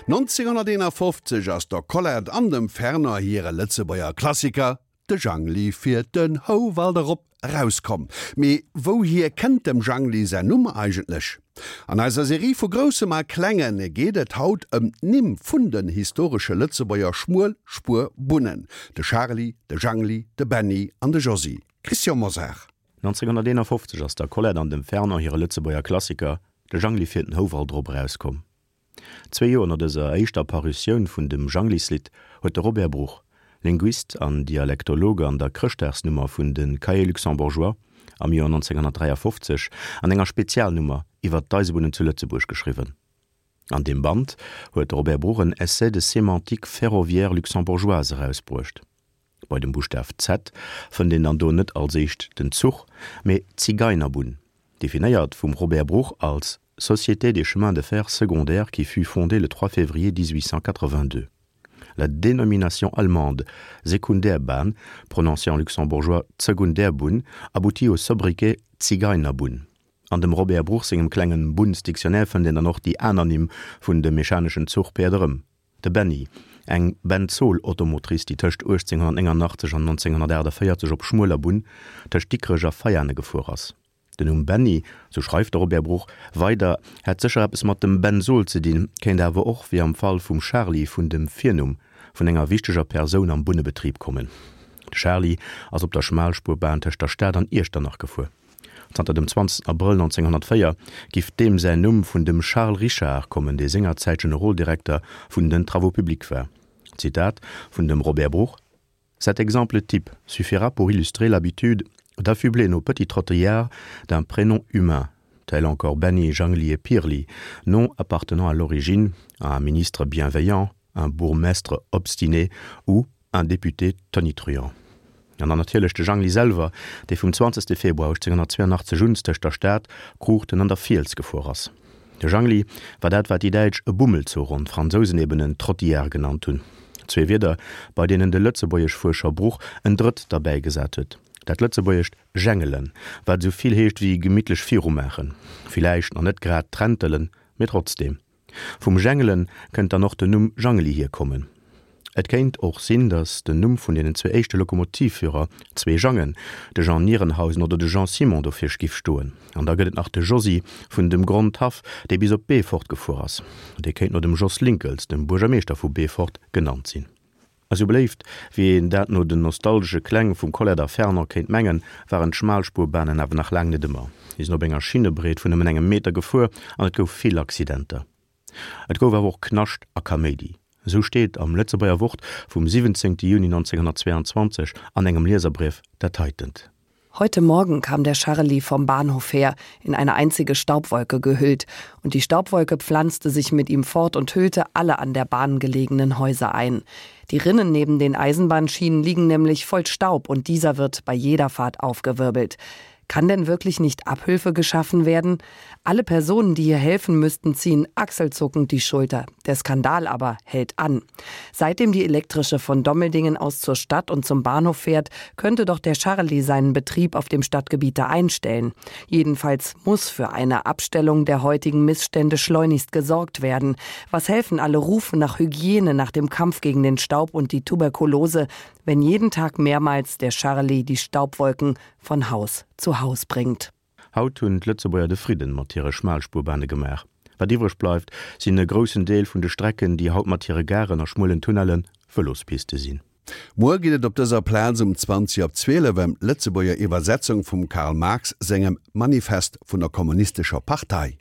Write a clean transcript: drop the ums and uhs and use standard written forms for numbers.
1951 ass der Colette an dem Fernand hire Lëtzebuerger Klassiker De Jangli fiert den Houwald erop erauskomm. Mee wouhier kënnt dem Jangli säin Numm eigentlech? An eiser Serie vu Groussem a Klengen geet et haut ëm d'Nimm vun den historesche Lëtzebuerger Schmuelspuerbunnen, de Charly, de Jangli, de Benny an de Josy. Christian Mosar. 1951 ass der Colette an dem Fernand hire Lëtzebuerger Klassiker De Jangli fiert den Houwald erop erauskomm. Zwee Joer no dëser éischter Parutioun vun dem Janglislidd huet de Robert Bruch, Linguist an Dialektologe an der Chrëschtdagsnummer vun de Cahiers luxembourgeois am Joer 1953 an enger Spezialnummer iwwer d'Eisebunnen zu Lëtzebuerg geschriwwen. An deem Band huet de Robert Bruch en Essai de sémantique ferroviaire luxembourgeoise erausbruecht. Bei dem Buschtaf Z fënnt een dann do net als éischt den Zuch, mee d'Zigeinerbunn, definéiert vum Robert Bruch als Société des chemins de fer secondaires qui fut fondée le 3 février 1882. La dénomination allemande Sekundärbahn, prononcée en luxembourgeois Zegundärbunn, aboutit au sobriquet Zigeinerbunn. An dem Robert Bruch sengem klengen Bunnsdictionnaire fënnt een dann och déi aner Nimm vun de mechaneschen Zuchpäerd erëm. De Benny, eng Benzol-Automotrice, déi tëscht 1889 an 1948 op schmueler Bunn tëscht Dikrech a Veiane gefuer ass. Den Numm Benny, sou schreift de Robert Bruch weider, hätt sécher eppes mat dem Benzol ze dinn, kéint awer och, wéi am Fall vum Charly, vun dem Virnumm vun enger wichteger Persoun am Bunnebetrib kommen. De Charly ass op der Schmalspurbahn tëscht der Stad an Iechternach gefuer. Zanter dem 20 Abrëll 1904 giff deem säin Numm vun dem Charles Richard kommen, dee sengerzäit Generoldirekter vun den Travaux publics war. Zitat vun dem Robert Bruch, Cet exemple type suffira pour illustrer l'habitude d'affubler nos petits trottillards d'un prénom humain, tel encore Benny, Jangli et Pirli, noms appartenant à l'origine à un ministre bienveillant, un bourgmestre obstiné ou un député tonitruant. An dann natierlech de Jangli selwer, dee vum 20. Februar 1882 un tëscht der Stad, Kruuchten an der Fiels gefuer ass. De Jangli war dat, wat déi Däitsch e Bummelzuch an d'Fransousen eben en Trottillard genannt hunn. Zwee Wierder, bei deenen de Lëtzebuergeschfuerscher Bruch en drëtt derbäigesat huet, dat lëtzebuergescht jengelen, wat esou vill heescht wéi gemittlech virumaachen, villäicht nach net grad trentelen, mee trotzdeem. Vum Jengelen kënnt dann och den Numm Jangeli hierkommen. Et kéint och sinn, datt den Numm vun deenen zwee éischte Lokomotivführer, zwee Jangen, de Jean Nierenhausen oder de Jean Simon dofir giff stoen. An da gëtt et nach de Josy vun dem Grondhaff, dee bis op Beefort gefuer ass. Dee kéint no dem Jos Linckels, dem Buergermeeschter vu Beefort, genannt sinn. Esou beléift, wéi een dat no den nostalgesche Kläng vum Colette a Fernand kéint mengen, waren d'Schmalspuerbanen awer nach laang net ëmmer. Si sinn op enger Schinnebreet vun nëmmen engem Meter gefuer an et gouf vill Accidenter. Et gouf awer och Knascht a Kaméidi. Esou steet am Lëtzebuerger Wort vum 17 Juni 1922 an engem Lieserbrief dat heitent. Heute Morgen kam der Charlie vom Bahnhof her, in eine einzige Staubwolke gehüllt, und die Staubwolke pflanzte sich mit ihm fort und hüllte alle an der Bahn gelegenen Häuser ein. Die Rinnen neben den Eisenbahnschienen liegen nämlich voll Staub und dieser wird bei jeder Fahrt aufgewirbelt. Kann denn wirklich nicht Abhilfe geschaffen werden? Alle Personen, die hier helfen müssten, ziehen achselzuckend die Schulter. Der Skandal aber hält an. Seitdem die elektrische von Dommeldingen aus zur Stadt und zum Bahnhof fährt, könnte doch der Charlie seinen Betrieb auf dem Stadtgebiet einstellen. Jedenfalls muss für eine Abstellung der heutigen Missstände schleunigst gesorgt werden. Was helfen alle Rufe nach Hygiene, nach dem Kampf gegen den Staub und die Tuberkulose, wenn jeden Tag mehrmals der Charlie die Staubwolken von Haus zu Haus bringt. Haut hunn d'Lëtzebuerger de Fridden mat hire Schmalspurbahne gemaach. Wat iwwreg bleift, sinn e groussen Deel vun de Strecken, déi haut mat hire Garen a schmuelen Tunnelle Vëlospiste sinn. Muer geet et op dëser Plaz um 20 op 12 ëm d'Lëtzebuerger Iwwersetzung vum Karl Marx sengem Manifest vun der Kommunistescher Partei.